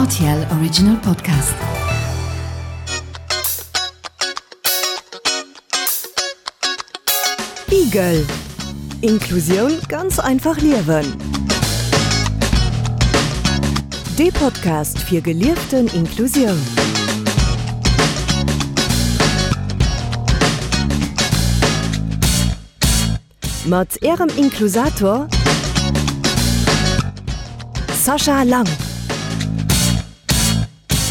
RTL Original Podcast. Igel Inklusioun ganz einfach liewen. Dee Podcast fir gelieften Inklusioun. Mat Ärem Inklusator Sascha Lang.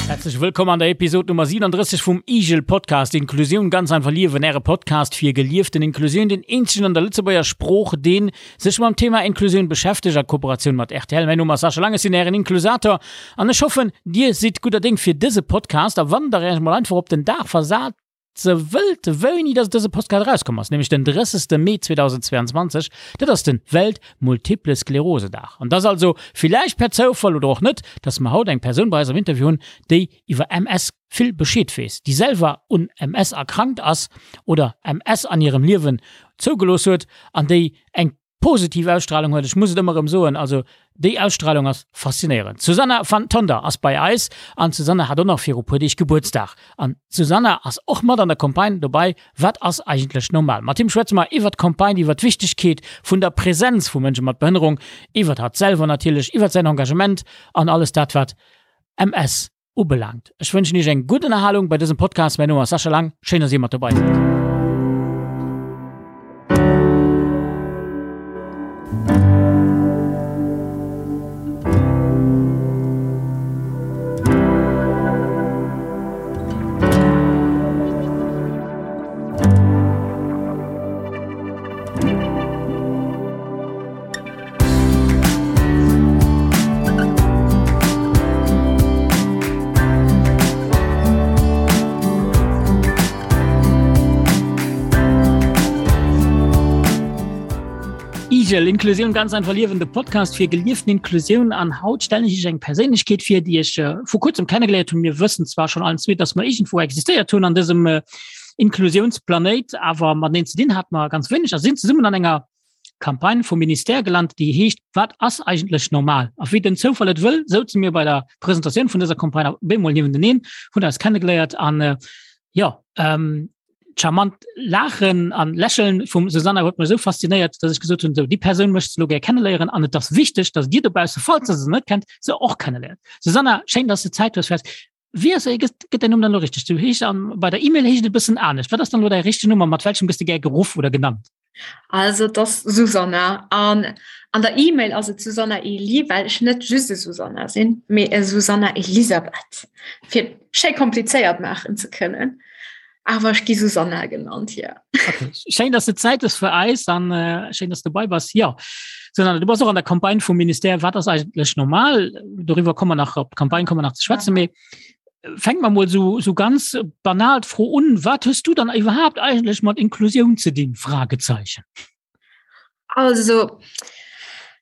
Herzlech wëllkomm an der Episode Nummer 37 vum Igel Podcast Inklusioun ganz einfach liewen, äre Podcast fir gelieften Inklusioun, den eenzegen an der Lëtzebuerger Sprooch, deen sech mam Thema Inklusioun beschäftegt, a Kooperatioun mat rtl. Mäin Numm ass Sascha Lang, ech sinn ären Inklusator an ech hoffen, dir sidd gudder Déng fir dëse Podcast a wann der Iech mol einfach op den Dag versat, Se wëllt wéini dass dëse Postcard erauskomm ass, nämlech den 30. Mee 2022, dat ass den Welt Multiple Sklerose Dag. An dass also, villäicht per Zoufall oder och net, dass mer haut eng Persoun bei eis am Interview hunn, déi iwwer MS vill Bescheed weess, déi selwer un MS erkrankt ass oder MS an hirem Liewen zougelooss huet an déi eng Positiv Ausstrahlung huet, ech muss et ëmmer erëm soen, also déi Ausstrahlung ass faszinéierend. D'Susanna van Tonder ass bei eis an d'Susanna hat och nach viru puer Deeg Gebuertsdag. An d'Susanna ass och mat an der Campagne dobei Wat ass eigentlech normal? Mat him schwätze mer iwwert d'Campagne, iwwert d'Wichtegkeet vun der Präsenz vu Mënsche mat Behënnerung, iwwert hatt selwer natierlech, iwwert säin Engagement an alles dat wat MS ubelaangt. Ech wënschen Iech eng gutt Ënnerhalung bei dësem Podcast. Mäin Numm ass Sascha Lang. Schéin, dass Dir mat dobei sidd. Igel, Inklusioun ganz einfach liewen, de Podcast fir gelieften Inklusioun. An haut stellen ech iech eng Perséinlechkeet vir, déi ech äh, vor kurzem kennengeléiert hunn. Mir wëssen zwar schon allen zwee, dass mer irgendwo existéiert hunn an dësem äh, Inklusiounsplanéit, awer mateneen ze dinn hat mer ganz wéineg a sinn zesummen an enger Campagne vum Ministère gelant, déi heescht Wat ass eigentlech normal? A wéi den Zoufall et wëll, souze mir bei der Presentatioun vun dëser Campagne op eemol niewenteneen, hunn eis kennegeléiert an äh, jo, ähm, d'charmant Laachen an Lächeln vum Susanna huet mech esou faszinéiert, dass ech gesot hunn, sou déi Persoun möchtest du lo gär kenneléieren an et ass wichteg, dass dir dobausse, falls der se net kennt, se och kenneléiert. Susanna, schéin, dass du Zäit hues fir eis. Wéi ass gëtt gëtt däin Numm dann elo richteg? Du heesch an bei der E-Mail heescht et e bëssen anescht. Wat ass dann elo däi richtegen Numm a mat welchem gëss de gär geruff oder genannt? Also et ass Susanna an an der E-Mail ass et Susanna Elie, well ech net just e Susanna sinn, mee e Susanna Elisabeth, fir et schéi komplizéiert maachen ze kënnen. Awer ech gi Susanna genannt, jo. Okay. Schéin, dass du Zäit hues fir eis an äh, schéin, dass du dobei bass. Jo. Susanna, du bass och an der Campagne vum Ministère Wat ass eigentlech normal? Doriwwer komme mer nach, op d'Campagne komme mer nach ze schwätzen, mee fänke mer mol sou, sou ganz banal d'Fro un, Wat hues du dann iwwerhaapt eigentlech mat Inklusioun ze dinn? Fragezeichen. Also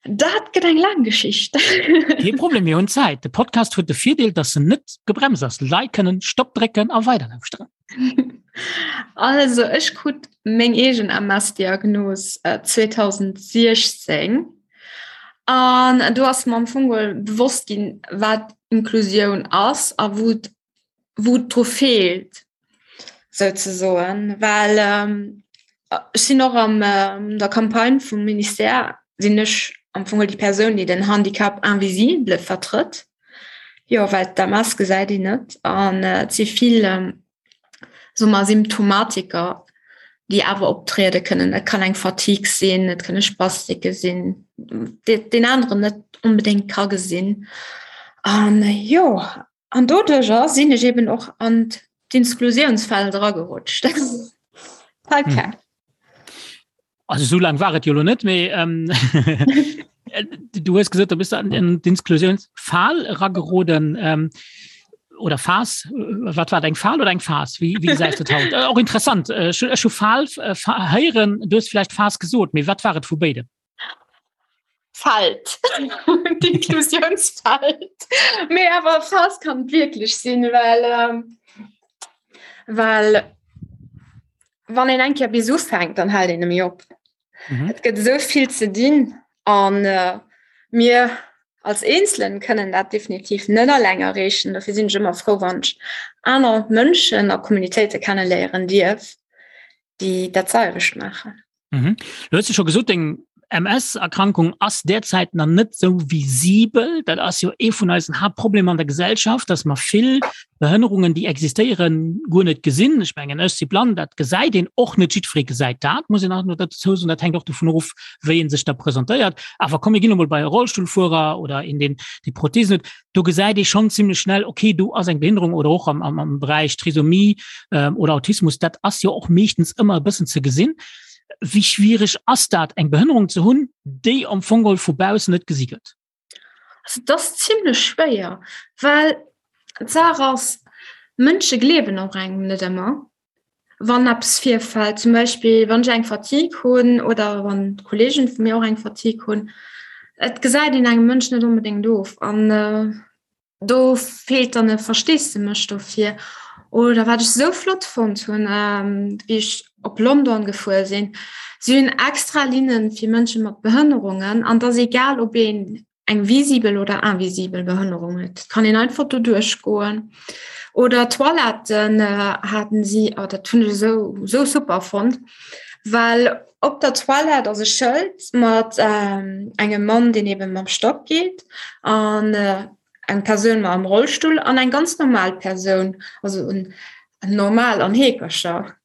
dat gëtt eng laang Geschicht. Kee Problem, mir hunn Zäit. De Podcast huet de Virdeel, dass en net gebremst ass. D'Leit kënnen Stopp drécken a weiderlauschteren. Also ech krut meng eegen MS-Diagnos 2016 an do ass mer am Fong geholl bewosst ginn, wat Inklusioun ass a wou et wou et dru feelt souzesoen, well ech sinn och an der Campagne vum Ministère sinn ech am Fong déi Persoun, déi den Handicap invisible vertrëtt. Jo, well d'MS gesäit een net an et si vill soe mer Symptomatiker, déi awer optriede kënnen. Et kann eng Fatigue sinn, et kënne Spastike sinn, déi deen aneren net onbedéngt ka gesinn. An jo, An doduercher sinn ech eben och an d'Inklusiounsfeld eragerutscht. Okay. Hm. Also so lang war et jo lo net méi. Ähm, du hues gesot, du bist an in d'Inklusiounsfal erageroden. Ähm, oder Fas, wat war eng Fal oder eng Fas? Wie, wie gesäis du haut? Äh, och interessant. Äh, ech hu Fal äh, héieren, du hues vielleicht Fas gesot, mee wat war et vu béidem? Feld D'Inklusiounsfeld. Mee awer Phas kann et wierklech sinn, well ähm, well wann een eng Kéier bis ufänkt, dann hält een net méi op. Mhm. Et gëtt esou vill ze dinn an äh, mir. als Eenzelen kënnen dat definitiv net alleng erreechen. Dofir sinn ech ëmmer frou, wann ech aner Mënschen a Communitéite kenneléieren dierf, déi dat selwecht maachen. Mhm. Du hues jo scho gesot, deng MS-Erkrankung ass derzäit nach net sou visibel. Dat ass jo ee vun eisen Haaptproblemer an der Gesellschaft, dass mer vill Behënnerungen, déi existéieren, guer net gesinn. Ech mengen, ech si blann, dat gesäit een och net. Jiddweree gesäit dat, muss een och nach dozou soen. Dat hänkt och dovun of, wéi ee sech da presentéiert. Awer komm, mir ginn emol bei e Rollstullfuerer oder een, deen déi Prothesen huet. Do gesäit ee schonn zimmlech schnell, okay, do ass eng Behinderung oder och am, am, am Beräich Trisomie ähm, oder Autismus, dat ass jo och meeschtens ëmmer e bëssen ze gesinn. Wéi schwierig ass dat, eng Behënnerung ze hunn, déi am Fong geholl vu baussen net gesi gëtt? Also dat ass zimmlech schwéier, well d'Saach ass, Mënsche gleewen och engem net ëmmer, wann eppes virfält. Zum Beispill wann ech eng Fatigue hunn oder wann d'Kolleegen vu mir och eng Fatigue hunn. Et gesäit een engem Mënsch net onbedéngt of an Do feelt dann e Versteesdemech dofir. Oder wat ech sou flott fonnt hunn, wéi ech op London gefuer sinn, si hunn extra Linne fir Mënsche mat Behënnerungen an et ass egal, ob een eng visibel oder invisibel Behënnerung huet, et kann een einfach do duerchgoen. Oder Toiletten haten si, oh dat hunn ech esou esou super fonnt, well op der Toilette ass e Schëld mat engem Mann, deen eben mam Stock geet an eng Persoun mam Rollstull an eng ganz normal Persoun, also en normal an Heekercher.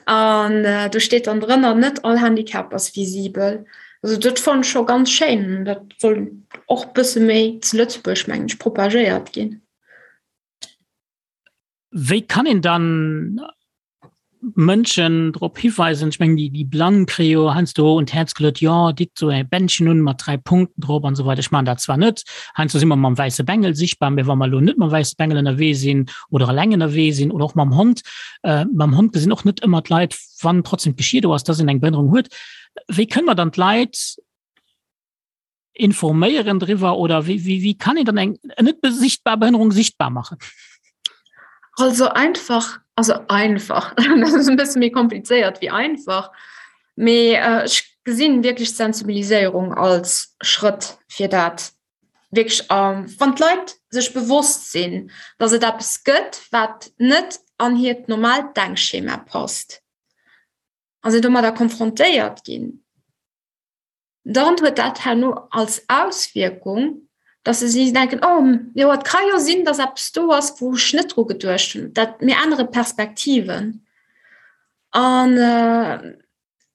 An do steet dann drënner, net all Handicap ass visibel. Also dat fannen ech scho ganz schéin. Dat soll och bësse méi zu Lëtzebuerg, mengen ech, propagéiert ginn. Wéi kann een dann Mënschen drop hiweisen? Ech mengen, déi, déi Blann kréie jo heiansdo un d'Häerz geluet, jo, ditt esou e Bändchen un mat 3 Punkten drop an esou weider. Ech maachen dat zwar net, heiansdo si mer mam wäisse Bengel sichtbar, mä wa mer elo net mam wäisse Bengel ënnerwee sinn oder eleng ënnerwee sinn oder och mam Hond, äh, mam Hond gesinn och net ëmmer d'Leit, wann trotzdem d'Geschier do ass, dass een eng Behënnerung huet. Wéi kënne mer dann d'Leit informéieren driwwer oder wéi, wéi, wéi kann een dann eng net sichtbar Behënnerung sichtbar machen? Also einfach, also einfach, dat ass e bësse méi komplizéiert wéi einfach, mee ech gesinn wierklech d'Sensibiliséierung als Schrëtt fir dat wierklech, wann d'Leit sech bewosst sinn, datt et eppes gëtt, wat net an hiert normaalt Denkschema passt a se domadder konfrontéiert ginn, dann huet dat herno als Auswierkung, dass se si denken, oh jo, et ka jo sinn, dass eppes do ass, wou ech net dru geduecht hunn. Dat mir ännere Perspektiven. An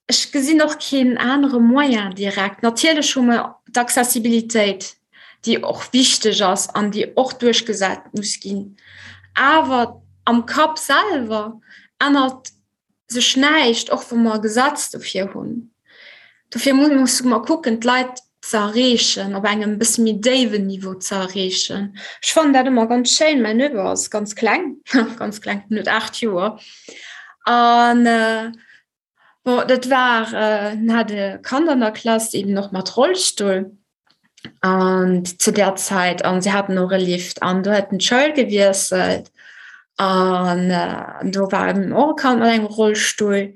ech gesinn och keen anere Moyen direkt. Natierlech hu mer d'Accessibilitéit, déi och wichteg ass an déi och duerchgesat muss ginn. Awer am Kapp selwer ännert sech näischt, och wa mer e Gesetz dofir hunn. Dofir musse mer kucken, d'Leit ze erreechen, op engem bësse méi déiwen Niveau ze erreechen. Ech fannen dat ëmmer ganz schéin. Mäin Neveu ass ganz kleng, ganz kleng, en huet 8 Joer. An bon, dat war, en hat e Kand an der Klass, eben och mat Rollstull. An zu der Zäit an se haten och e Lift an do huet en d'Schoul gewiesselt an do war eben och e Kand mat engem Rollstull,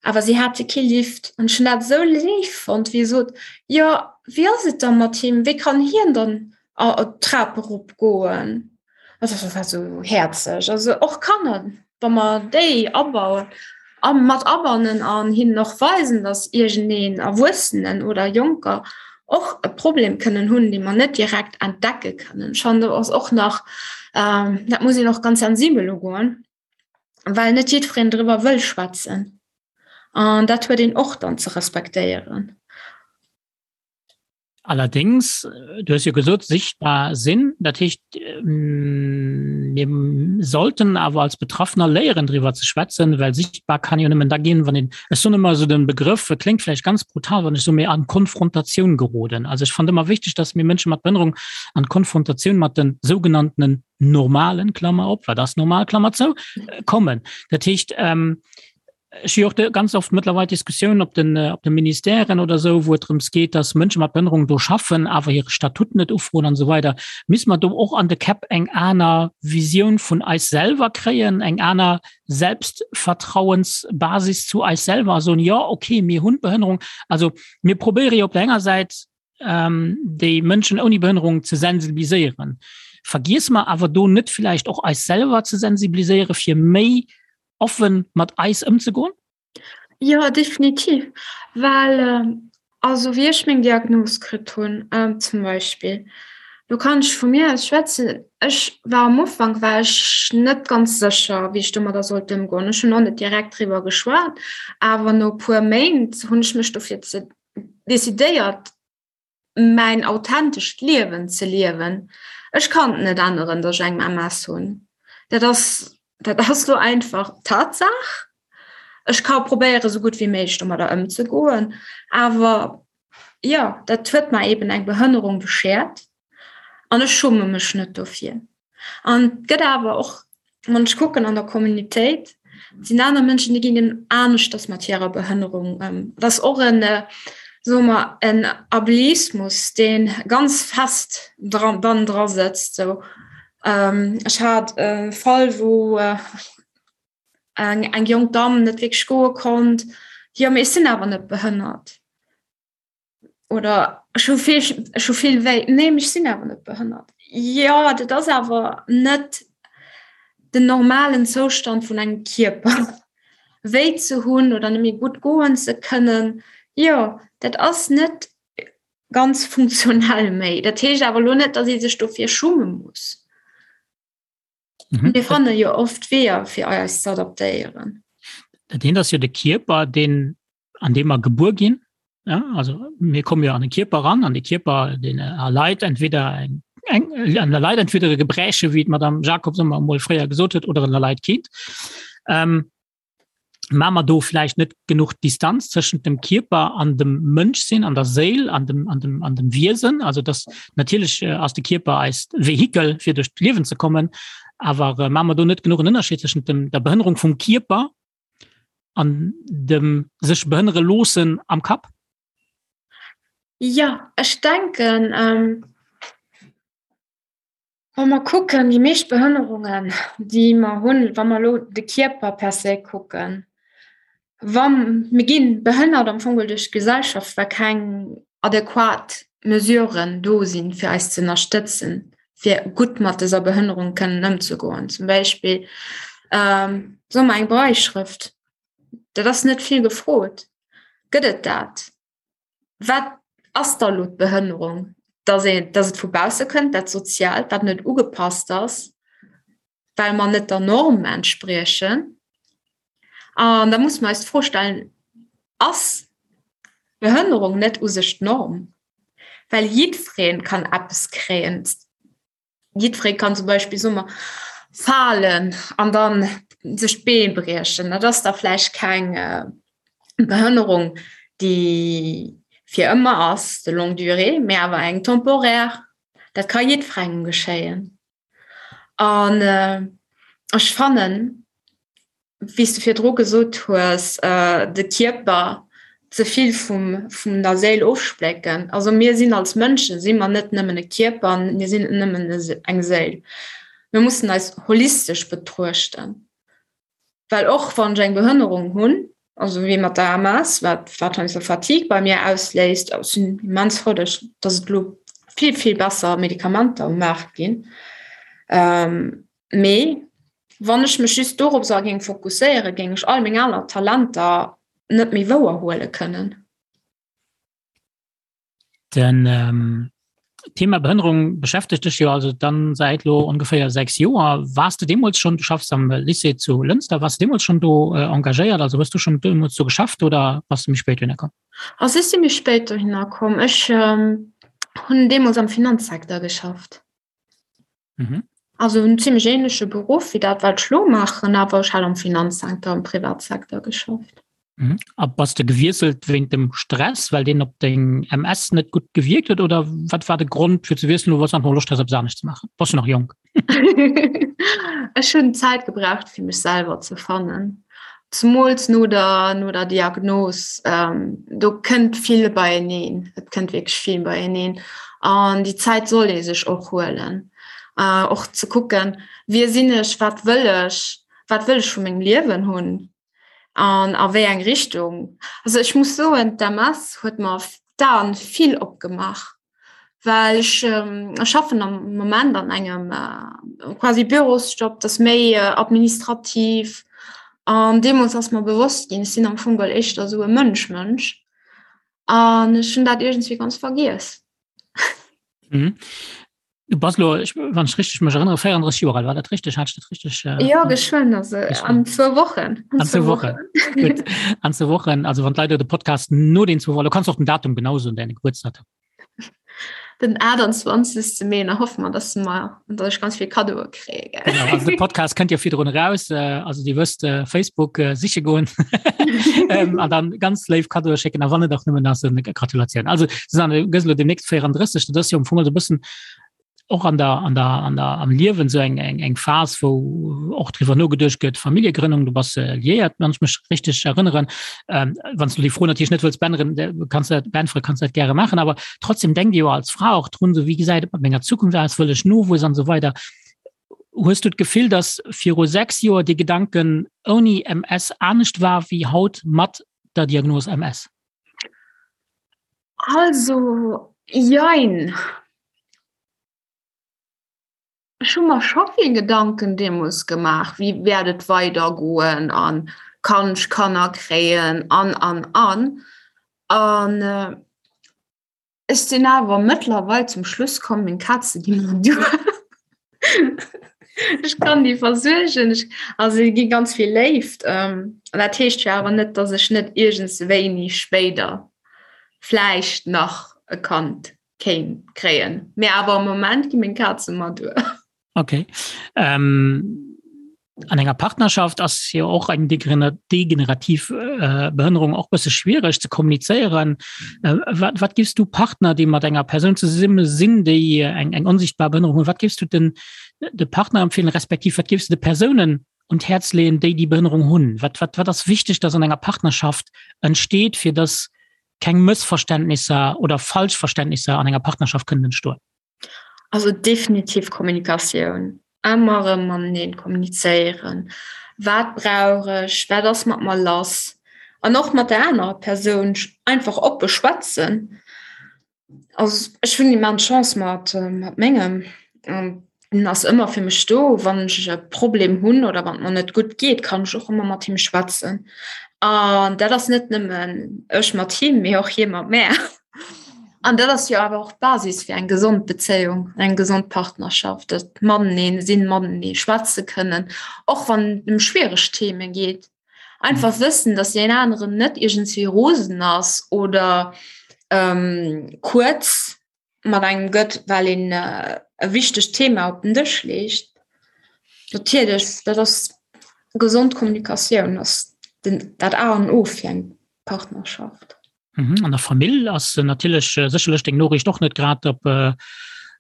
awer si hate kee Lift an ech hunn dat esou léif fonnt, wéi e sot, jo wéi ass et da mat him, wéi kann hien dann d'Trap erop goen? Also dat war esou häerzeg. Also och Kanner, wa mer déi abauen a mat abannen an hinnen och weisen, datt iergendeen Erwuessenen oder Jonker och e Problem kënnen hunn, dee mer net direkt entdecke kënnen. Ech fannen, do ass och nach, dat muss een och ganz sensibel ugoen, well net jiddwereen driwwer wëll schwätzen. An dat huet een och dann ze respektéieren. Allerdings, du hues jo gesot, sichtbar sinn, dat heescht, mir sollten awer als Betraffener léieren driwwer ze schwätzen, well sichtbar kann jo nëmmen da ginn, wann een, ech soen ëmmer esou den Begrëff, e kléngt vläicht ganz brutal, wann ech soen, mee an Konfrontatioun geroden. Also ech fannen ëmmer wichteg, dass mir Mënsche mat Behënnerung an Konfrontatioun mat den sougenanntenen normalen, Klammer op, wat ass normal, Klammer zou, kommen. Dat heescht, Ech hu jo och ganz oft mëttlerweil Diskussiounen op den, op de Ministèren oder esou, wou et drëms geet, dass Mënsche mat Behënnerung do schaffen, awer hire Statut net ufroen an esou weider. Misst mer do och an de Käpp eng aner Visioun vun eis selwer kréien, eng aner Selbstvertrauensbasis zu eis selwer a soen, jo, okay, mir hunn d'Behënnerung. Also mir probéiere jo op der enger Säit. ähm, déi Mënschen ouni Behënnerung ze sensibiliséieren. Vergiesse mer awer do net vielleicht och eis selwer ze sensibiliséiere fir méi offen mat eis ëmzegoen? Jo, definitiv, well also wéi ech meng Diagnos kritt hunn zum Beispill, do kann ech vu mir aus schwätzen, ech war am Ufank war ech net ganz sécher, wéi ech domadder sollt ëmgoen. Ech hunn och net direkt driwwer geschwat, awer no e puer Méint hunn ech mech dofir ze decidéiert, mäin authentescht Liewen ze liewen. Ech kann et net änneren, datt ech eng MS hunn. Dat ass, dat ass lo einfach Tatsaach. Ech ka probéieren, esou gutt wéi méiglech domadder ëmzegoen, awer jo, dat huet mer eben eng Behënnerung beschert an ech schumme mech net dofir. An et gëtt awer och, wann ech kucken an der Communautéit, et sinn aner Mënschen, déi ginn eben aneschters mat hirer Behënnerung ëm. Et ass och en, soe mer, en Ableismus, dee ganz fest dran, dann dra sëtzt sou. Ech hat e Fall, wou eng, eng jonk Damm net wierklech goe konnt, jo, mee ech sinn awer net behënnert. Oder ech hu vill, ech hu vill wéi. Nee, mee ech sinn awer net behënnert. Jo, dat ass awer net den normalen Zoustand vun engem Kierper. Wéi ze hunn oder net méi gutt goen ze kënnen, jo, dat ass net ganz funktionell méi. Dat heescht awer elo net, datt ee sech dofir schumme muss. Mhm. Mir fanne jo oft Weeër, fir eis ze adaptéieren. Dat eent ass jo de Kierper, deen an deem mer gebuer ginn. Ja, also mir komme jo an de Kierper ran, an de Kierper den erleit entweder eng eng an der Leit entweder e Gebräche, wéi d'Madame Jacobs ëmmer emol fréier gesot huet, oder en erleit keent. Ähm, ma mer do vläicht net genuch Distanz tëschent dem Kierper an dem Mënschsinn, an der Séil, an dem, an dem, an dem Wiesen. Also dass natierlech äh, ass de Kierper eist Vehikel, fir duerch d'Liewen ze kommen, awer äh, ma mer do net genuch en Ënnerscheed tëschent dem, der Behënnerung vum Kierper an dem sech behënnere loossen am Kapp? Jo, ech denken, wa mer kucken, déi meescht Behënnerungen, déi mer hunn, wa mer elo de Kierper per se kucken, wa mir gi behënnert am Fong duerch d'Gesellschaft, well keng adequat Mesuren do sinn, fir eis ze ënnerstëtzen, fir gutt mat dëser Behënnerung kënnen ëmzegoen. Zum Beispill ähm, soe mer eng Brailleschrëft, dat ass net vill gefrot. Gëtt et dat? Wat ass da lo d'Behënnerung? Dass een, dass et vu bausse kënnt, dat Soziaalt, wat net ugepasst ass, well mer net der Norm entspriechen. An da muss mer eis d'Fro stellen, Ass Behënnerung net u sech d'Norm? Well jiddweree kann eppes kréien. Jiddweree kann zum Beispill, soe mer, falen an da sech d'Been briechen. Dat ass da vläicht keng Behënnerung, déi fir ëmmer ass, de longue durée, mä awer eng temporaire. Dat ka jiddwerengem geschéien. An ech fannen, wéi s de virdru gesot hues, de Kierper ze vill vum vun der Séil ofsplécken. Also mir sinn als Mënschen si mer net nëmmen e Kierper, mir sinn net nëmmen eng Séil. Mir mussen eis holistesch betruechten. Well och wann ech eng Behënnerung hunn, also wéi mat der MS, wat wat heiansdo Fatigue bei mir ausléist, ech sinn immens frou, dass dass et elo vill, vill besser Medikamenter um Maart ginn. Mee wann ech mech just doropser géing fokusséieren, géing ech all meng aner Talenter net méi wouer huele kënnen. Den ähm, Thema Behënnerung beschäftegt dech jo also dann säit lo ongeféier 6 Joer. Wars du deemools schon, du schaffs am Lycée zu Lënster, wars du deemools schon do äh, engagéiert, also hues du schon deemools do geschafft oder bass du méi spéit dohinner komm? Also ech si méi spéit dohinner komm. Ech ähm, hunn deemools am Finanzsecteur geschafft. Mhm. Also en ziemlech ähnleche Beruff wéi dat wat ech lo maachen, awer ech hat am Finanzsecteur, am Privatsecteur geschafft. Mhm. A bass de gewiesselt wéint dem Stress, well deen op deng MS net gutt gewierkt huet oder wat war de Grond fir ze wiesselen oder einfach Loscht has eppes anescht ze maachen? Bass jo nach jonk. Ech hunn Zäit gebraucht fir mech selwer ze fannen. Zemools no der, no der Diagnos, do kënnt vill beieneen, et kënnt wierklech vill beieneen an déi Zäit soll ee sech och huelen, och ze kucken, wie sinn ech, wat wëll ech, wat wëll ech vu mengem Liewen hunn an a wéi eng Richtung. Also ech muss soen, d'MS huet mer. d'Aen vill opgemaach, well ech ähm, schaffen am Moment an engem äh, quasi Bürosjob, das méi äh, administrativ. An deemools ass mer bewosst ginn, ech sinn am Fong geholl éischter esou e Mënsch-Mënsch. An ech hunn dat iergendswéi ganz vergiess. Mhm. Du bass lo, ich, wann ich richtig mech erinnere, 34 Joer alt, war dat richtig? Hat ich dat richtig? Äh, ja, geschwënn, also an zwou Wochen. An zwou Wochen. Gut. An zwou Wochen, also wann d'Leit de Podcast no den zwou Wochen, du kannst och den Datum genau soen, deine Geburtsdatum. Den 28. Mee, da hoffe mer, dass mer, dass ech ganz vill Kaddoe kréie. Genau, also de Podcast kënnt jo virdrun raus, äh, also Dir wësst, äh, Facebook äh, siche goen ähm, an dann ganz léif Kaddoe schécken, a wann et och nëmmen ass eng Gratulatioun. Also Susanne, du gëss elo demnächst 34, dat ass jo am Fong also e bëssen och an der, an der, an der, am Liewen sou eng, eng, eng Phas, wou och driwwer nogeduecht gëtt, Familljegrënnung, du bass äh, liéiert, wann ech mech richteg erënneren. Ähm, wann s du déi Fro natierlech net wëlls beänneren, kanns du dat, beäntweren, kanns du dat gäre maachen, awer trotzdem denkt Dir jo als Fra och drun, sou wéi gesäit et mat menger Zukunft aus, wëll ech Nowuess an esou weider. Hues du d'Gefill, datt viru 6 Joer dee Gedanken ouni MS anescht war wéi haut mat der Diagnos MS? Also, jein. Ech hu mer scho vill Gedanken deemools gemaach, wéi wäert et weidergoen an kann ech Kanner kréien an an an. An ech sinn awer mëttlerweil zum Schluss komm, meng Kaze gi mer duer. Ech kann déi versuergen, ech, also si gi ganz vill Léift. An dat heescht jo awer net, datt ech net iergendswéini spéider vläicht nach e Kand kéint kréien. Mee awer am Moment gi meng Kaze mer duer. Okay. Ähm, an enger Partnerschaft ass jo och eng degenerativ äh, Behënnerung och bësse schwiereg ze kommunizéieren. Äh, wat, wat gifs du Partner, déi mat enger Persoun zesumme sinn, déi eng, eng onsichtbar Behënnerung hunn, wat gifs du den de Partner empfehlen, respektiv wat gifs du de Persounen un d'Häerz leeën, déi déi Behënnerung hunn? Wat, wat, wat ass wichteg, dass an enger Partnerschaft entsteet, fir dass keng Mëssverständnisser oder Falschverständnisser an enger Partnerschaft kënnen entstoen? Also definitiv Kommunikatioun. Ëmmer erëm mateneen kommunizéieren. Wat brauch ech? Wat ass mat mer lass? An och mat der anerer Persoun einfach oppe schwätzen. Also ech hunn immens Chance mat mat mengem. En ass ëmmer fir mech do, wann ech e Problem hunn oder wann et mer net gutt geet, kann ech och ëmmer mat him schwätzen. An dat ass net nëmmen ech mat him, mee och hie mat mär. An dat ass jo awer och d'Basis fir eng gesond Bezéiung, eng gesond Partnerschaft, dat matenee sinn, matenee schwätze kënnen, och wann et ëm schwiereg Theme geet. Einfach wëssen, datt deen aneren net iergendswéi rosen ass oder kuerz mat engem gëtt, well een e wichtegt Thema op den Dësch leegt. Natierlech, dat ass gesond Kommunikatioun ass den, dat A an O fir eng Partnerschaft. Mhm. An der Famill ass natierlech äh, sécherlech deng Noriicht och net grad op äh,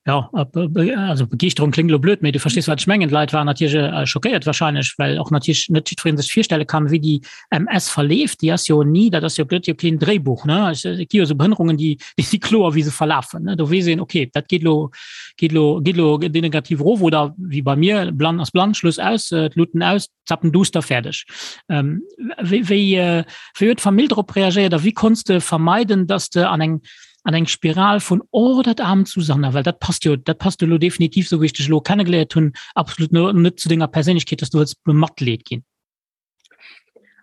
ja, op, äh, also Begeeschterung klingt lo blöd, mee du verstees wat ech mengen. D'Leit waren natierlech äh, schockéiert wahrscheinlech, well och natierlech net jiddwereen sech virstelle kann, wéi déi MS verleeft. Déi ass jo ni, dat ass jo gëtt jo keen Dréibuch, ne? Et gi jo esou Behënnerungen, déi déi si kloer, wéi se verlafen, ne? Do weess een, okay, dat geet lo geet lo geet lo degenerativ erof oder wéi bei mir, blann ass blann, Schluss aus, d'Luuten aus, zappen duster, fäerdeg. Ähm, wéi wéi äh, wéi huet d'Famill drop reagéiert a wéi konns de vermeiden, dass de an eng an eng Spiral vun oh dat aarmt Susanna, well dat passt jo dat passt jo lo definitiv, sou wéi ech dech elo kennegeléiert hunn, absolut net zu denger Perséinlechkeet, dass du wëlls bematleet ginn.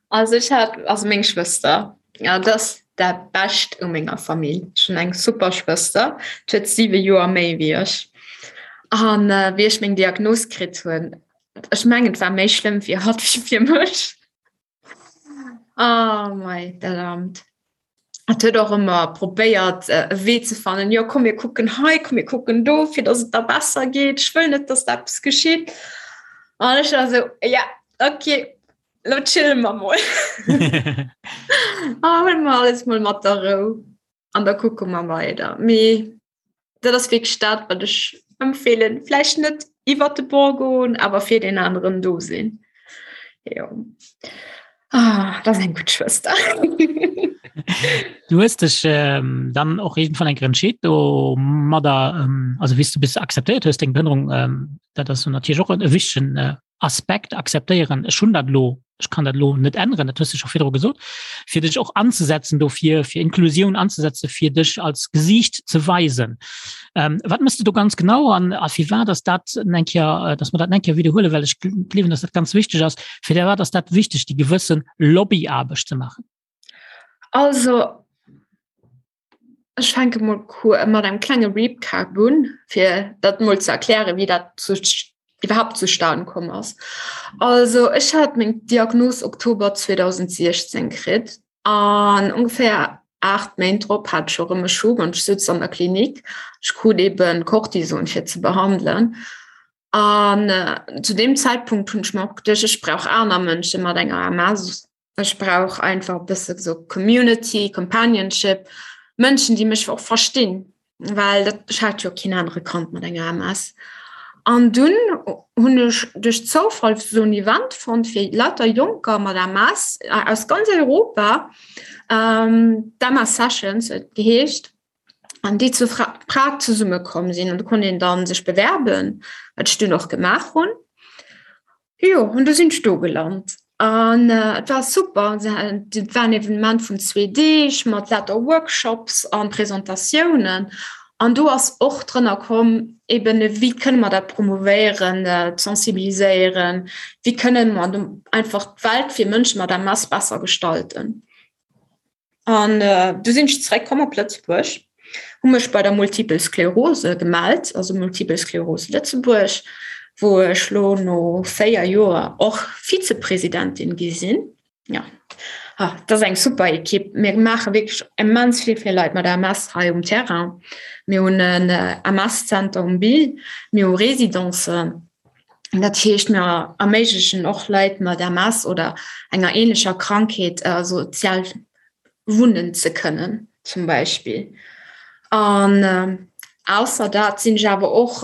Also ech hat also meng Schwëster ja dat ass dat Bescht u menger Famill. Ech hunn eng super Schwëster, d'huet 7 Joer méi wéi ech. An äh, wéi ech meng Diagnos kritt hunn, ech mengen et war méi schlëmm fir hatt wéi fir mech. Oh mei, dat Amt. Et huet och ëmmer probéiert e Wee ze fannen, jo komm mir kucken hei, komm mir kucken do, fir datt et der besser geet. Ech wëll net, datt der eppes geschitt. An ech war esou, ja okay, lo chille mer mol. A huele mer alles mol mat der Rou an da kucke mer weider. Mee dat ass wierklech dat, wat ech empfehlen. Vläicht net iwwer de Bord goen, awer fir den aneren do sinn. Jo. Ah, dat ass eng gutt Schwëster. Du hues dech ähm, dann och irgendwann eng entscheet do mat der ähm, also wéi s du bis akzeptéiert hues deng Behënnerung, ähm, dat ass natierlech och e wichtegen äh, Aspekt akzeptéieren. Ech hunn dat lo. Ech kann dat elo net änneren, dat hues de scho virdru gesot, fir dech och anzesetzen dofir, fir Inklusioun anzesetzen, fir dech als Gesiicht ze weisen. Ähm, wat mëss du do ganz genau an a firwat ass dat eng Kéier, äh, dass mer dat eng Kéier wiederhuelen, well ech gleewen, dass dat ganz wichteg ass. Firwat ass dat wichteg, déi gewëssen Lobbyaarbecht ze maachen? Also Ech fänke mol mat engem klenge Recap un, fir dat mol ze erklären, wéi dat zu, iwwerhaapt zustan komm ass. Also ech hat meng Diagnos Oktober 2016 kritt an ongeféier 8 Méint drop hat ech erëm e Schub an ech sutz an der Klinik. Ech krut eben Cortison fir ze behandelen. An zu deem Zäitpunkt hunn ech mer och geduecht, ech brauch aner Mënsche mat enger MS. Ech brauch einfach e bësse sou Community, Companionship, Mënschen, déi mech och verstinn, well dat, ech hat jo keen anere kannt mat enger MS. An dunn hunn ech duerch Zoufall sou en Event fonnt fir lauter Jonker mat MS aus ganz Europa, d'MS Sessions huet et geheescht, an déi zu Prag zesummekomm sinn. An do konnt een dann sech bewerben, wat ech dunn och gemaach hunn. Jo, an du sinn ech do gelant. An et war super. Et war en Evenement vun zwee Deeg mat lauter Workshops an Presentatiounen. An do ass och drënner komm, eben wéi kënne mer dat promouvéieren, sensibiliséieren, wéi kënne mer einfach d'Welt fir Mënsche mat MS besser gestalten. An du sinn ech zeréckkomm op Lëtzebuerg, hu mech bei der Multiple Sklerose gemellt, also Multiple Sklerose Lëtzebuerg, wou ech lo no 4 Joer och Vizepresidentin gi sinn. Ja, ah, dat ass eng super Ekipp. Mir maache wierklech immens vill fir Leit mat MS hei um Terrain. Mir hunn en MS-Zenter um Bill, mir hu Residencen. Dat heescht, mir erméiglechen och Leit mat MS oder enger ähnlecher Krankheet sozial wunnen ze kënnen zum Beispill. An ausser dat sinn ech awer och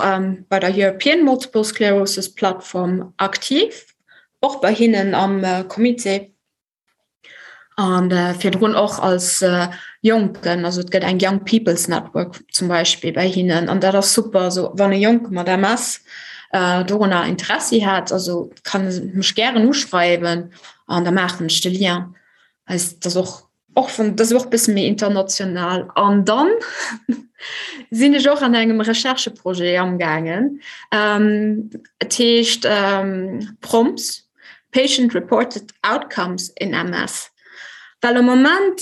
bei der European Multiple Sclerosis Platform aktiv, och bei hinnen am Comité. An virdrun och als Jonken, also et gëtt eng Young People's Network zum Beispill bei hinnen an dat ass super, also wann e Jonke mat MS dorunner Interessi hat, also kann e mech gären uschreiwen an da maachen ech de Lien. Also dat ass och och vun dat ass och bësse méi international. An dann sinn ech och an engem Rechercheprojet amgaangen, et heescht PROMS. Patient Reported Outcomes in MS. Well am Moment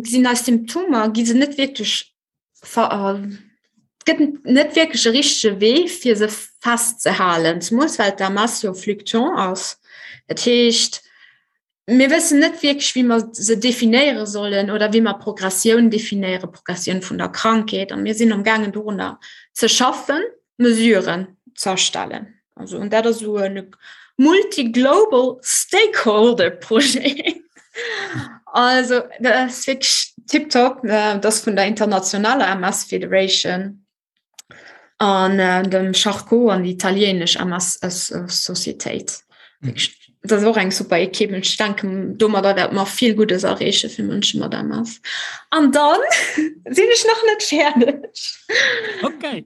sinn eis Symptomer, gi se net wierklech gëtt net wierklech e richtege Wee fir se festzehalen, zemools well d'MS jo fluctuant ass. Dat heescht, mir wëssen net wierklech, wéi mer se definéiere sollen oder wéi mer Progressioun definéieren, Progressioun vun der Krankheet. A mir sinn amgaangen dorunner ze schaffen. Mesuren z'erstellen. Also und dat ass esou e multi-global stakeholder Projet. Also dat ass wierklech tiptop. Dat ass vun der internationaler MS Federation an dem Charcot an déi italienesch MS Societéit. Dat ass och eng super Ekipp. Ech denken, domadder wäerte mer vill Guddes erreeche fir Mënsche mat MS. An dann sinn ech nach net fäerdeg. Okay.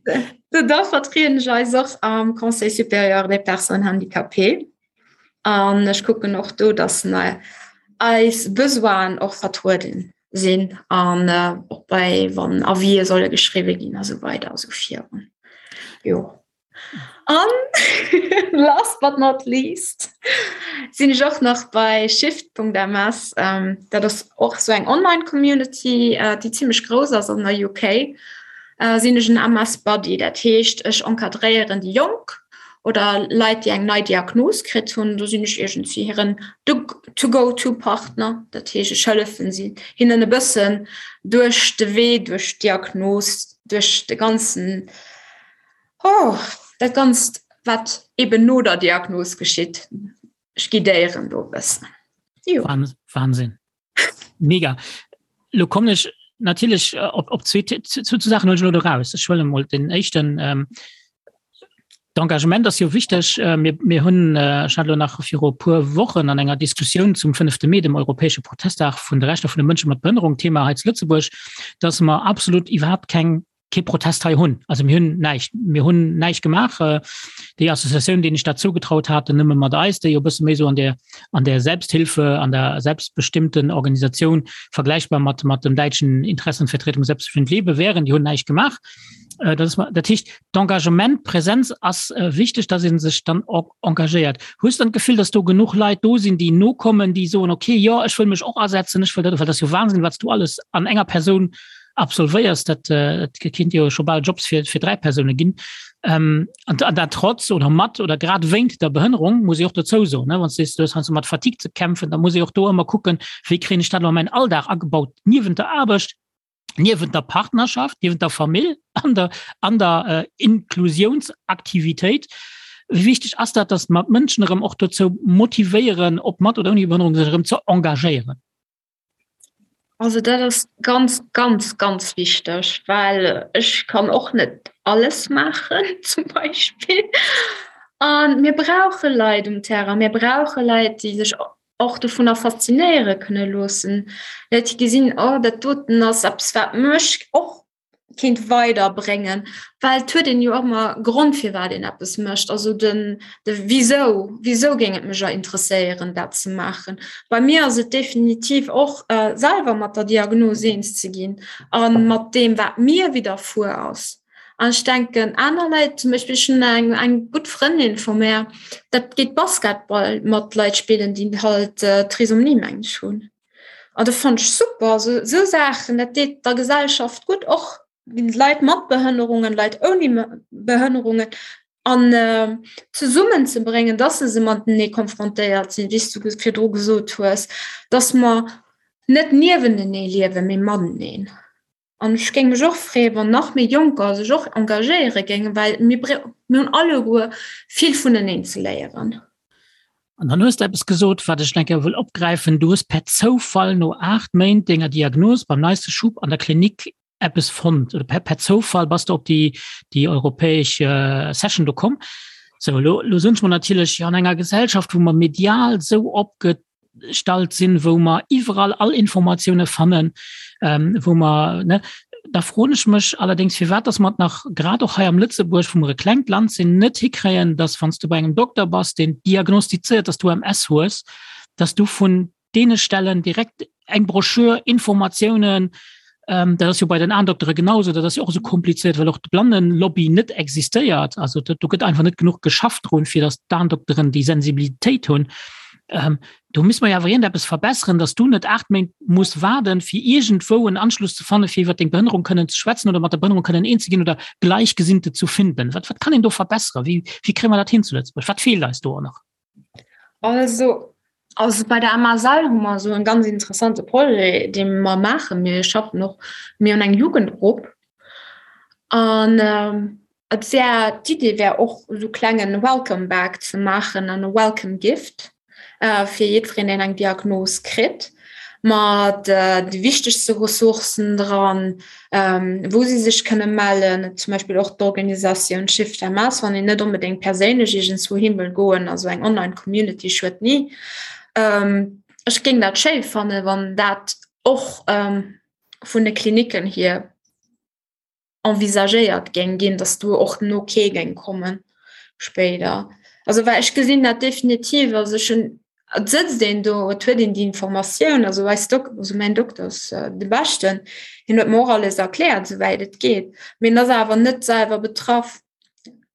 Da vertrieden ech eis och am Conseil supérieur des personnes handicapées. An ech kucken och do, dass eis Besoinen och vertrueden sinn an och bei wann Avisë solle geschriwwe ginn a sou weider a sou virun. Jo. An last but not least sinn ech och nach bei Shift.ms. Dat ass och sou eng Online-Community, déi zimmlech grouss ass an der UK. Sinn ech en MS Buddy, dat heescht ech encadréieren déi Jonk oder Leit, déi eng nei Diagnos kritt hunn. Do sinn ech iergendwéi hiren To-go-to-Partner. Dat heescht ech hëllefen si hinnen e bëssen duerch de Wee, duerch d'Diagnos, duerch de ganzen Oh, dat Ganzt, wat eben no der Diagnos geschitt. Ech guidéieren do e bëssen. Jo. Wahnsinn. Mega. Lo kommen ech natierlech äh, op, op zwee, zu, zu Sachen lo raus. Ech huele mol den éischten. Ähm, D'Engagement ass jo wichteg. Äh, mir, mir hunn äh, ech hat lo nach viru puer Wochen an enger Diskussioun zum 5. Mee, dem europäesche Protesttag vun de Rechter vun de Mënsche mat Behënnerung, Thema hei zu Lëtzebuerg, dass mer absolut iwwerhaapt keng. kee Protest hei hunn. Also mir hunn näischt, mir hunn näischt gemaach. Äh, déi Associatioun, déi ech dat zougetraut haten, nëmme mat eis, déi jo bësse méi so an der an der Selbsthilfe, an der selbstbestimmten Organisatioun vergleichbar mat mat dem däitschen Interessenvertretung Selbstbestimmt lebe wären, déi hunn näischt gemaach. Äh, dat ass, dat heescht d'Engagement, Präsenz ass äh, wichteg, dass een sech dann och engagéiert. Hues dann d'Gefill, dass do genuch Leit do sinn, déi nokommen, déi soen okay, jo, ech wëll mech och asetzen, ech wëll dat, well dat ass jo Wahnsinn, wat s du alles an enger Persoun absolvéiers, dat, äh, dat kinnt jo scho bal Jobs fir, fir 3 Persoune ginn. Ähm, an, an dat trotz oder mat oder grad wéint der Behënnerung, muss ich och dozou soen, ne? Wann du sees, du hues heiansdo mat Fatigue ze kämpfen, da muss ich och do ëmmer kucken, wéi kréien ech dat elo an mäin Alldag agebaut, niewent der Aarbecht, niewent der Partnerschaft, niewent der Famill, an der, an der äh, Inklusionsaktivitéit. Wéi wichteg ass dat, dass mer d'Mënschen erëm och dozou motivéieren, ob mat oder ouni Behënnerung, sech erëm ze engagéieren? Also dat ass ganz, ganz, ganz wichteg, well ech kann och net alles maachen zum Beispill. An mir brauche Leit um Terrain, mir brauche Leit, déi sech och dovunner faszinéiere kënne loossen, Leit, déi gesinn, oh dat doten ass eppes, wat mech och kéint weiderbréngen, well et huet een jo och ëmmer Grond firwat een eppes mécht, also den de Wisou, wisou géing et mech interesséieren dat ze maachen. Bei mir ass et definitiv och selwer mat der Diagnos eens ze ginn a mat deem wat mir widderfuer ass. An ech denken aner Leit, zum Beispill ech hunn eng eng gutt Frëndin vu mär, dat geet Basketball mat Leit spillen, déi halt Trisomie meng ech hunn. An dat fannt ech super, also esou Saachen, dat deet der Gesellschaft gutt, och Leit mat Behënnerungen, Leit ouni Behënnerungen an zesummen ze bréngen, dass se se matenee konfrontéiert sinn, wéi s du virdru gesot hues, dass mer net niewentenee liewen, mee mateneen. An ech géing mech och freeën, wann nach méi Jonker sech och engagéiere géingen, well mir mir hunn alleguer vill vuneneen ze léieren. An dann hues de eppes gesot, wat ech nach eng Kéier wëll opgräifen. Du hues per Zoufall no 8 Méint denger Diagnos beim neiste Schub an der Klinik eppes fonnt oder per, per Zoufall bass de op déi, déi europäesch Session do komm. Sou, elo, elo soen ech mer natierlech, jo an enger Gesellschaft, wou mer medial esou opge stallt sinn, wou mer iwwerall all Informatioune fannen, ähm, wou mer ne, da froen ech mech allerdéngs, firwat dass mer et nach grad och hei am Lëtzebuerg, wou mer e klengt Land sinn, net hikréien, dass wann s du bei engem Dokter bass, deen diagnostizéiert, dass du MS hues, dass du vun deene Stellen direkt eng Broschür, Informatiounen, ähm, dat ass jo bei den Aendoktere genauso, dat ass jo och esou komplizéiert, well och d'Blannenlobby net existéiert. Also do, do gëtt einfach net genuch geschafft drun, fir datt d'Aendokteren déi Sensibilitéit hunn. Ähm, do misst mer jo awer iergendeppes verbesseren, datt du net 8 Méint muss waarden, fir iergendwou en Anschluss ze fannen, fir iwwer deng Behënnerung kënnen ze schwätzen oder mat der Behënnerung kënnen eens ze ginn oder Gleichgesinnte zu finden. Wat, wat kann een do verbesseren? Wéi, wéi kréie mer dat hin zu Lëtzebuerg? Wat feelt eis do och nach? Also, also bei der MSL hu mer esou en ganz interessante Projet, dee mer maachen. Mir schaffen och, mir hunn eng Jugendgrupp an et wär, d'Idee wär och esou klengen Welcome Bag ze maachen an e Welcome Gift. fir jiddwereen, deen eng Diagnos kritt, mat de wichtegste Ressourcen dran, wou si sech kënne mellen, zum Beispill och d'Organisatioun Shift MS, wann een net onbedéngt perséinlech iergendswou hin wëll goen, also eng Online-Community schuet ni. Ech géing dat schéi fannen, wann dat och vun de Klinicken hier envisagéiert géing ginn, dass do och den Ok géing kommen spéider. Also well ech gesinn dat definitiv, also ech hunn, et sëtzt een do, et huet een déi Informatioun, also eis Dok-, also mäin Dokter ass de beschten, hien huet mer och alles erkläert, souwäit et geet, mee en ass awer net selwer betraff.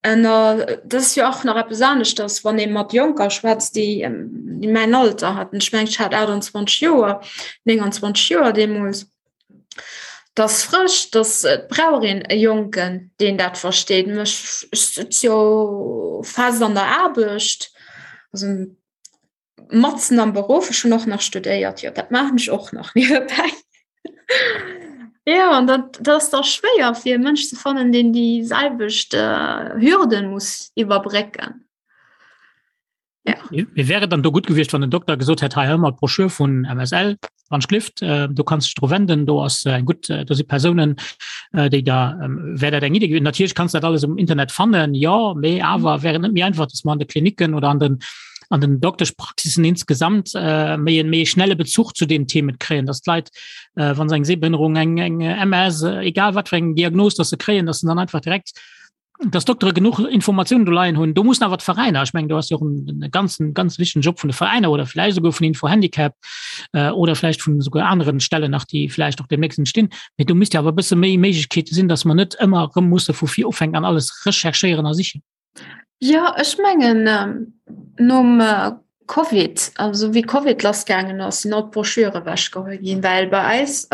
En dat ass jo och nach eppes aneschters, wann ee mat Jonker schwätzt, déi mäin Alter haten, ech mengen ech hat 28 Joer, 29 Joer deemools, 't ass frësch, dass et brauch een e Jonken, deen dat versteet. Ech sëtz jo fest an der Aarbecht, also matzen am Beruff. Ech hunn och nach studéiert, jo dat maachen ech och nach niewebäi. Jo, an dat dat ass da schwéier fir e Mënsch ze fannen, deen déi selwecht Hürden muss iwwerbrécken. Ja. Mir wäre dann do gut gewiescht, wann den Doktor gesot hätt hei ëmmer d'Broschür vun MSL wann Schlift äh, du kannst dich dro wenden, do ass äh, eng gut äh, do si Persounen äh, déi da ähm, wär dat eng Idee gewesen. Natierlech kannst dat alles um Internet fannen, ja, mee awer wär et net méi einfach, dass man an de Kliniken oder an den. an den Dokteschpraxissen insgesamt äh, méi en méi schnelle Bezuch zu den Themen kréien, dass d'Leit äh, wann se eng Sehbehinderung, eng eng MS, äh, egal wat fir eng Diagnos, dass se kréien, dass se dann einfach direkt dass Doktere genuch Informationen do leien hunn. Do mussen awer d'Veräiner, ech mengen do ass jo och en ganzen ganz wichtegen Job vun de Veräiner oder vläicht esouguer vun Info Handicap äh, oder vläicht vun esouguer aneren Stellen nach, déi vläicht och demnächst entstinn. Mee do misst jo awer e bësse méi Méiglechkeete sinn, dass mer net ëmmer erëm musse vu vir ufänken an alles recherchéieren a sichen. Jo, ech mengen nom Covid, also wéi Covid lassgaangen ass, sinn all d'Broschüre ewechgeholl ginn, well bei eis,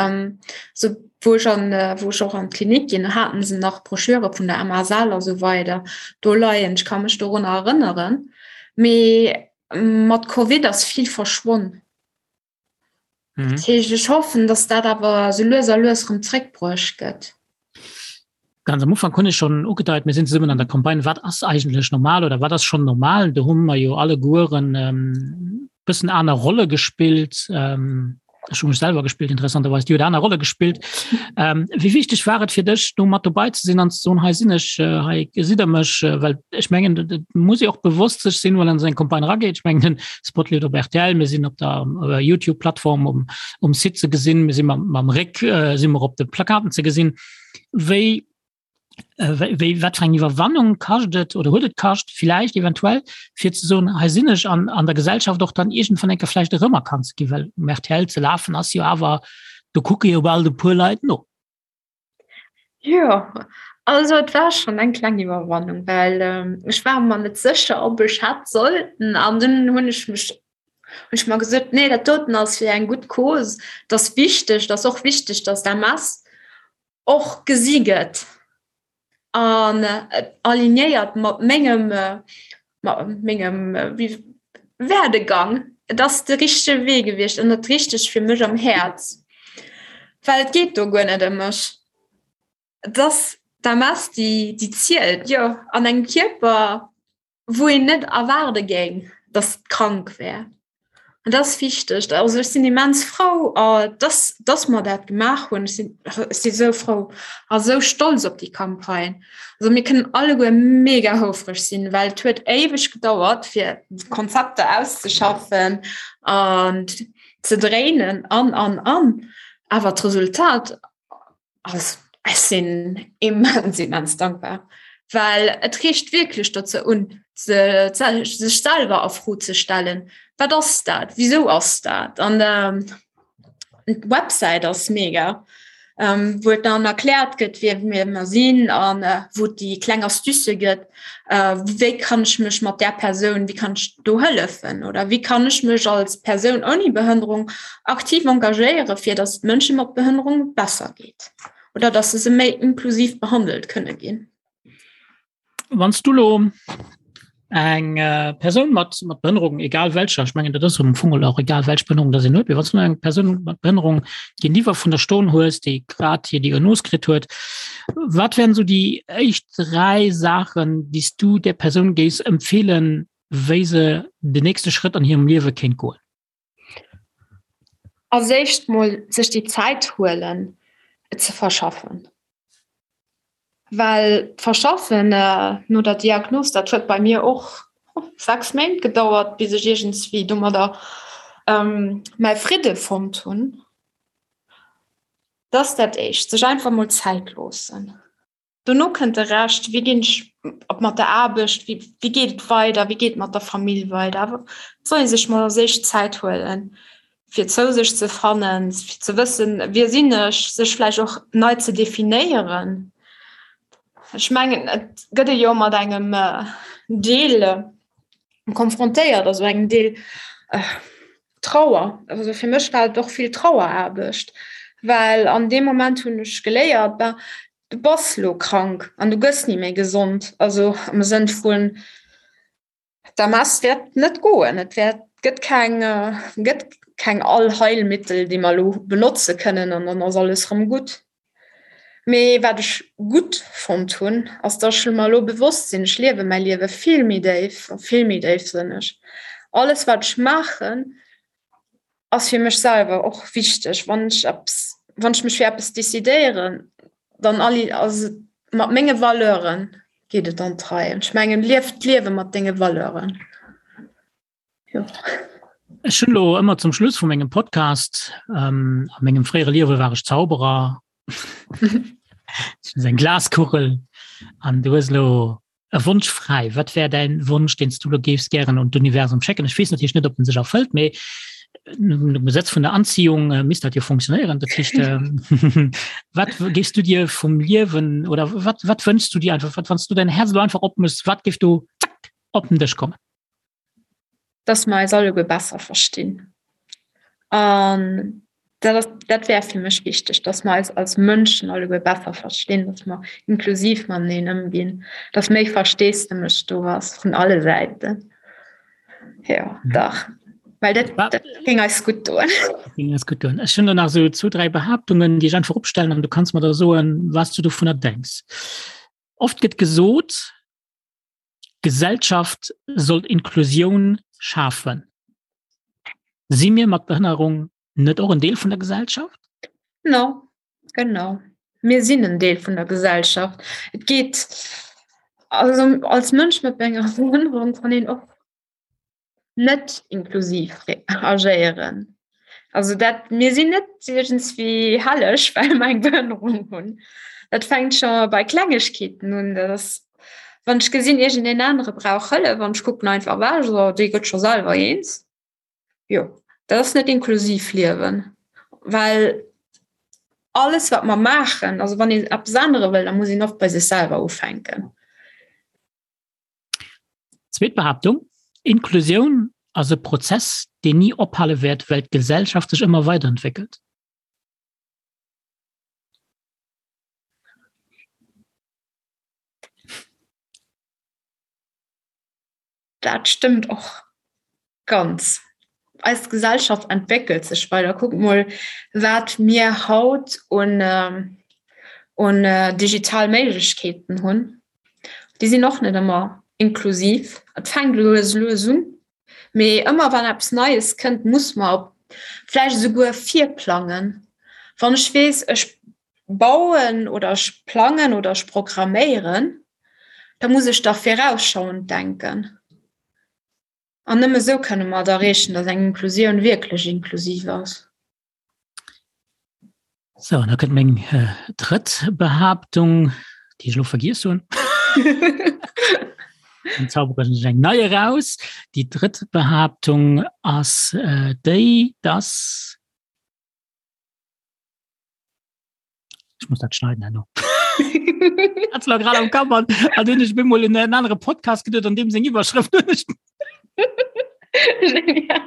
sou wou ech an, wou ech och an d'Klinik ginn, haten se nach Broschüre vun der MSL a sou weider do leien. Ech ka mech dorunner erënneren. Mee mat Covid ass vill verschwonn. Mhm. Dat heescht, ech hoffen, dass dat awer sou lues a lues rëm zréckbruecht gëtt. Ganz am Ufank hunn ech schonn ugedeit, mir sinn zesummen an der Campagne Wat ass eigentlech normal oder wat ass schonn normal? Do hu mer jo allegueren ähm, bëssen aner Rolle gespillt. Ähm, ech hu mech selwer gespillt, interessanterweis, Dir hutt aner Rolle gespillt. Ähm, wéi wichteg war et fir dech, do mat dobei ze sinn an ze soen, hei sinn ech, äh, hei gesitt der mech, äh, well ech mengen, dat muss ee och bewosst sech sinn, wann an esou eng Campagne erageet. Ech mengen, den Spot leeft op RTL, mir sinn op der äh, YouTube-Plattform um, um Site ze gesinn, mir sinn mam, mam Réck äh, si mer op de Plakaten ze gesinn. Wéi äh, wéi wat fir eng Iwwerwannung kascht et oder huet et kascht, vielleicht eventuell, fir ze soen, hei sinn ech an, an der Gesellschaft och dann iergendwann eng Kéier vläicht erëmerkannt ze ginn, well um RTL ze lafen ass jo awer, do kucke jo bal e puer Leit no. Jo, also et war schonn eng kleng Iwwerwannung, well ech war mer net sécher, ob ech hätt sollten. An dunn hunn ech mech hunn ech mer gesot, nee, dat doten ass fir eng gutt Cause, et ass wichteg, et ass och wichteg, datt d'MS och gesi gëtt an alignéiert mat mengem mat mengem Werdegang. Et ass de richtege Wee gewiescht an dat Richtegt fir mech am Häerz, well et geet do guer net ëm mech. Et ass d'MS, déi déi zielt, jo, an engem Kierper. wou een net erwaarde géing, dass et krank wär. An dat ass wichteg. Also ech sinn immens frou, dass, dass mer dat gemaach hunn. Ech sinn, ech si sou frou a sou stolz op déi Campagne. Also mir kënnen alleguer mega houfreg sinn, well et huet éiweg gedauert, fir d'Konzepter auszeschaffen an ze dréinen an, an, an. Awer d'Resultat Also, ech sinn immens, immens dankbar, well et reegt wierklech dozou un, se, sech selwer a Fro ze stellen, Wat ass dat? Wisou ass dat? An ähm, d'Websäit ass mega, ähm, wou et dann erkläert gëtt, wie mir mer sinn an äh, wou et déi kleng Astucë gëtt, äh, wéi kann ech mech mat där Persoun, wéi kann ech do hëllefen oder wéi kann ech mech als Persoun ouni Behënnerung aktiv engagéiere fir datt et Mënsche mat Behënnerung besser geet oder datt se méi inklusiv behandelt kënne ginn. Wann s du lo eng äh, Persoun mat mat Behënnerung, egal welcher, ech mengen dat ass am Fong och egal welch Behënnerung dat een huet, mee wann s du eng Persoun mat Behënnerung géintiwwer vun der stoen hues, déi grad hir Diagnos kritt huet, wat wären esou déi éischt 3 Saachen, déi s du där Persoun géifs empfeelen, wéi se den nächste Schrëtt an hirem Liewe kéint goen? Als éischt mol sech déi Zäit huelen, et ze verschaffen. Well d'Verschaffen no der Diagnos, dat huet bei mir och 6 Méint gedauert, bis ech iergendswéi domadder mäi Fridde fonnt hunn. Dat ass dat Éischt, sech einfach mol Zäit loossen. Dono kënnt de Rescht, wéi ginn ech op mat der Aarbecht, wéi wéi geet et weider, wéi geet et mat der Famill weider. Awer et soll ee sech mol als éischt Zäit huelen, fir zou sech ze fannen, fir ze wëssen, wie sinn ech, sech vläicht och nei ze definéieren. Ech mengen, et gëtt ee jo mat engem Deel konfrontéiert, also engem Deel Trauer. Also fir mech war et och vill Traueraarbecht, well an deem Moment hunn ech geléiert, ben, du bass lo krank an du gëss ni méi gesond, also am Sënn vun d'MS wäert net goen, et wäert gëtt keng gëtt keng Allheilmittel, déi mer lo benotze kënnen an dann ass alles rëm gutt. Mee wat ech gutt fonnt hunn, ass dass ech mer elo bewosst sinn, ech liewe mäi Liewe vill méi déif a vill méi déifsënneg. Alles wat ech maachen, ass fir mech selwer och wichteg. Wann ech eppes, wann ech mech fir eppes decidéieren, dann ass et mat menge Valeuren geet et an d'Rei. An ech mengen, lief d'Liewe mat denge Valeuren. Jo. Ech hunn elo ëmmer zum Schluss vu mengem Podcast, ähm, a mengem fréiere Liewe war ech Zauberer, eng Glaskugel an du hues elo e Wonsch fräi. Wat wär däin Wonsch, deen s du elo géifs gären un d'Universum schécken? Ech weess natierlech net, ob en sech erfëllt, mee nom Gesetz vun der Anziehung äh, misst dat jo funktionéieren. Dat heescht, ähm, wat géifs du dir vum Liewen oder wat, wat wënschs du dir einfach, wat, wann s du dein Herz elo einfach opmëss, wat géif do zack op den Dësch kommen? Dass mer eis alleguer besser verstinn. An dat ass, dat wär fir mech wichteg, dass mer eis als Mënschen alleguer besser verstinn, dass mer inklusiv mateneen ëmginn, dass méi Versteesdemech do ass vun alle Säiten. Jo, dach. Well dat, dat géing eis gutt doen. Dat géing eis gutt doen. Ech hunn do nach esou zwou, dräi Behaaptungen, déi ech einfach opstellen an du kanns mer da soen, wat s du dovunner denks. Oft gëtt gesot, D'Gesellschaft sollt Inklusioun schafen. Si mir mat Behënnerung net och en Deel vun der Gesellschaft? No, genau. Mir sinn en Deel vun der Gesellschaft. Et geet also als Mënsch mat enger Behënnerung kann een och net inklusiv agéieren. Also dat mir sinn net iergendswéi helleg, well mer eng Behënnerung hunn. Dat fänkt scho bei Klengegkeeten un, dat ass wann ech gesinn iergendeen anere brauch Hëllef an ech kucken einfach ewech, so dee gëtt scho selwer eens. Jo, dat ass net inklusiv liewen, well alles wat mer maachen, also wann een eppes ännere wëll, da muss een och bei sech selwer ufänken. Zweet Behaaptung, Inklusioun ass e Prozess, deen ni ophale wäert, well d'Gesellschaft sech ëmmer weiderentwéckelt. Dat stëmmt och ganz. Eis Gesellschaft entwéckelt sech weider. Kuckt mol, wat mir haut un, un digital Méiglechkeeten hunn. Déi sinn och net ëmmer inklusiv. Et fänkt lues lues un, mee ëmmer wann eppes Neies kënnt, muss mer op vläicht esouguer virplangen. Wann ech weess, ech bauen oder ech plangen oder ech programméieren, da muss ech dach virausschauend denken. An nëmme esou kënne mer et erreechen, datt eng Inklusioun wierklech inklusiv ass. So, an da kënnt meng äh, drëtt Behaaptung, déi ech elo vergiess hunn. Dann zaubere ech eng nei eraus. Déi drëtt Behaaptung ass äh, déi, dass Ich muss dat schneiden herno. Hat's lo grad am Kapp an an hunn ech bemol en en anere Podcast geduet an deem seng Iwwerschrëft hunn ech Genial.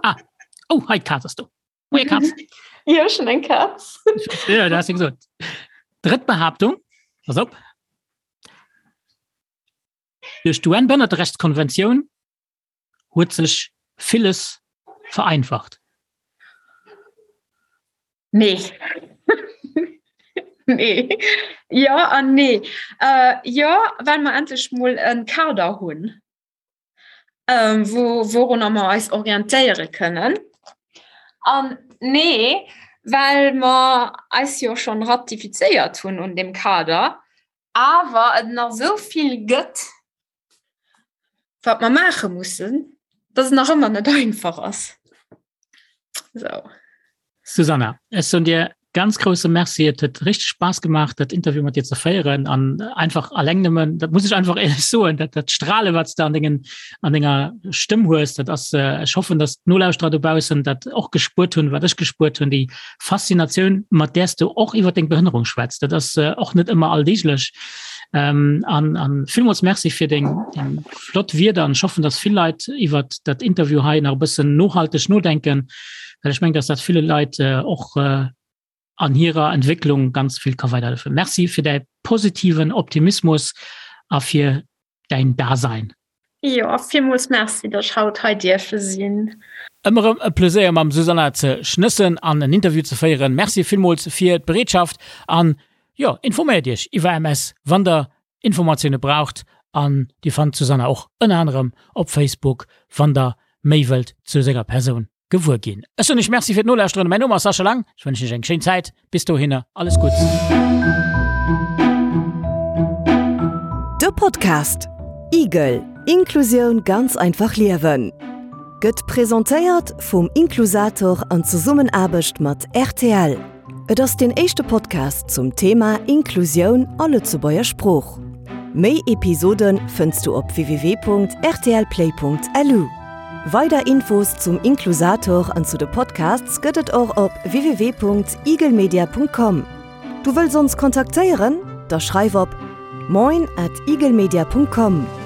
Ah, oh, hei d'Kaz ass do. Moie Katz. Jo, schon eng Katz. Ja, du hast ja gesagt. Drëtt Behauptung, pass op. Duerch d'UN-Behënnerterechtskonventioun huet sech villes vereinfacht. Nee. nee. Ja an nee. Äh, ja, well mer endlech mol en Kader hunn. ähm, wo, worunner mer eis orientéiere kënnen. An nee, well mer eis jo schon ratifizéiert hunn un dem Kader, awer et nach esou vill gëtt, wat mer maache mussen, dass et nach ëmmer net einfach ass. So. Susanna, ech soen dir ganz grousse Merci. Et huet richteg Spaass gemaach, dat Interview mat dir ze féieren an einfach alleng nëmmen, dat muss ech einfach éierlech soen, dat dat Strale, wat s de an dengen an denger Stëmm hues, dat ass, ech hoffen, datt d'Nolauschterer dobaussen dat och gespuert hunn, wat ech gespuert hunn, déi Faszinatioun, mat där s du och iwwer deng Behënnerung schwätz. Dat ass och net ëmmer alldeeglech. Ähm, an, an villmools Merci fir deng, deng flott Wierder an ech hoffen, datt vill Leit iwwer dat Interview hei nach e bëssen nohalteg nodenken, well ech mengen, datt dat ville Leit äh, och äh, an hirer Entwécklung ganz vill ka weiderhëllefen. Merci fir däi positiven Optimismus a fir däin Dasein. Jo, villmools Merci, datt ech haut hei dierfe sinn. Ëmmer erëm e Pleséier mam Susanna ze schnëssen an en Interview ze féieren. Merci villmools fir d'Bereetschaft an jo, informéiert iech iwwer MS wann der Informatioune braucht an dir fannt d'Susanna och ënner anerem op Facebook wann der méi wëllt zu senger Persoun. Gewuer ginn. Ech soen iech Merci fir d'Nolauschteren. Mäin Numm ass Sascha Lang. Ech wënschen iech eng schéin Zäit. Bis dohinner, alles Gutts. De Podcast Igel, Inklusioun ganz einfach liewen gëtt presentéiert vum Inklusator an Zesummenaarbecht mat rtl. Et ass deen éischte Podcast zum Thema Inklusioun a Lëtzebuerger Sprooch. Méi Episode fënns du op www.rtlplay.lu. Weider Infos zum Inklusator an zu de Podcasts gëtt et och op www.igelmedia.com. Du wëlls ons kontaktéieren? Da schreif op moin at igelmedia.com.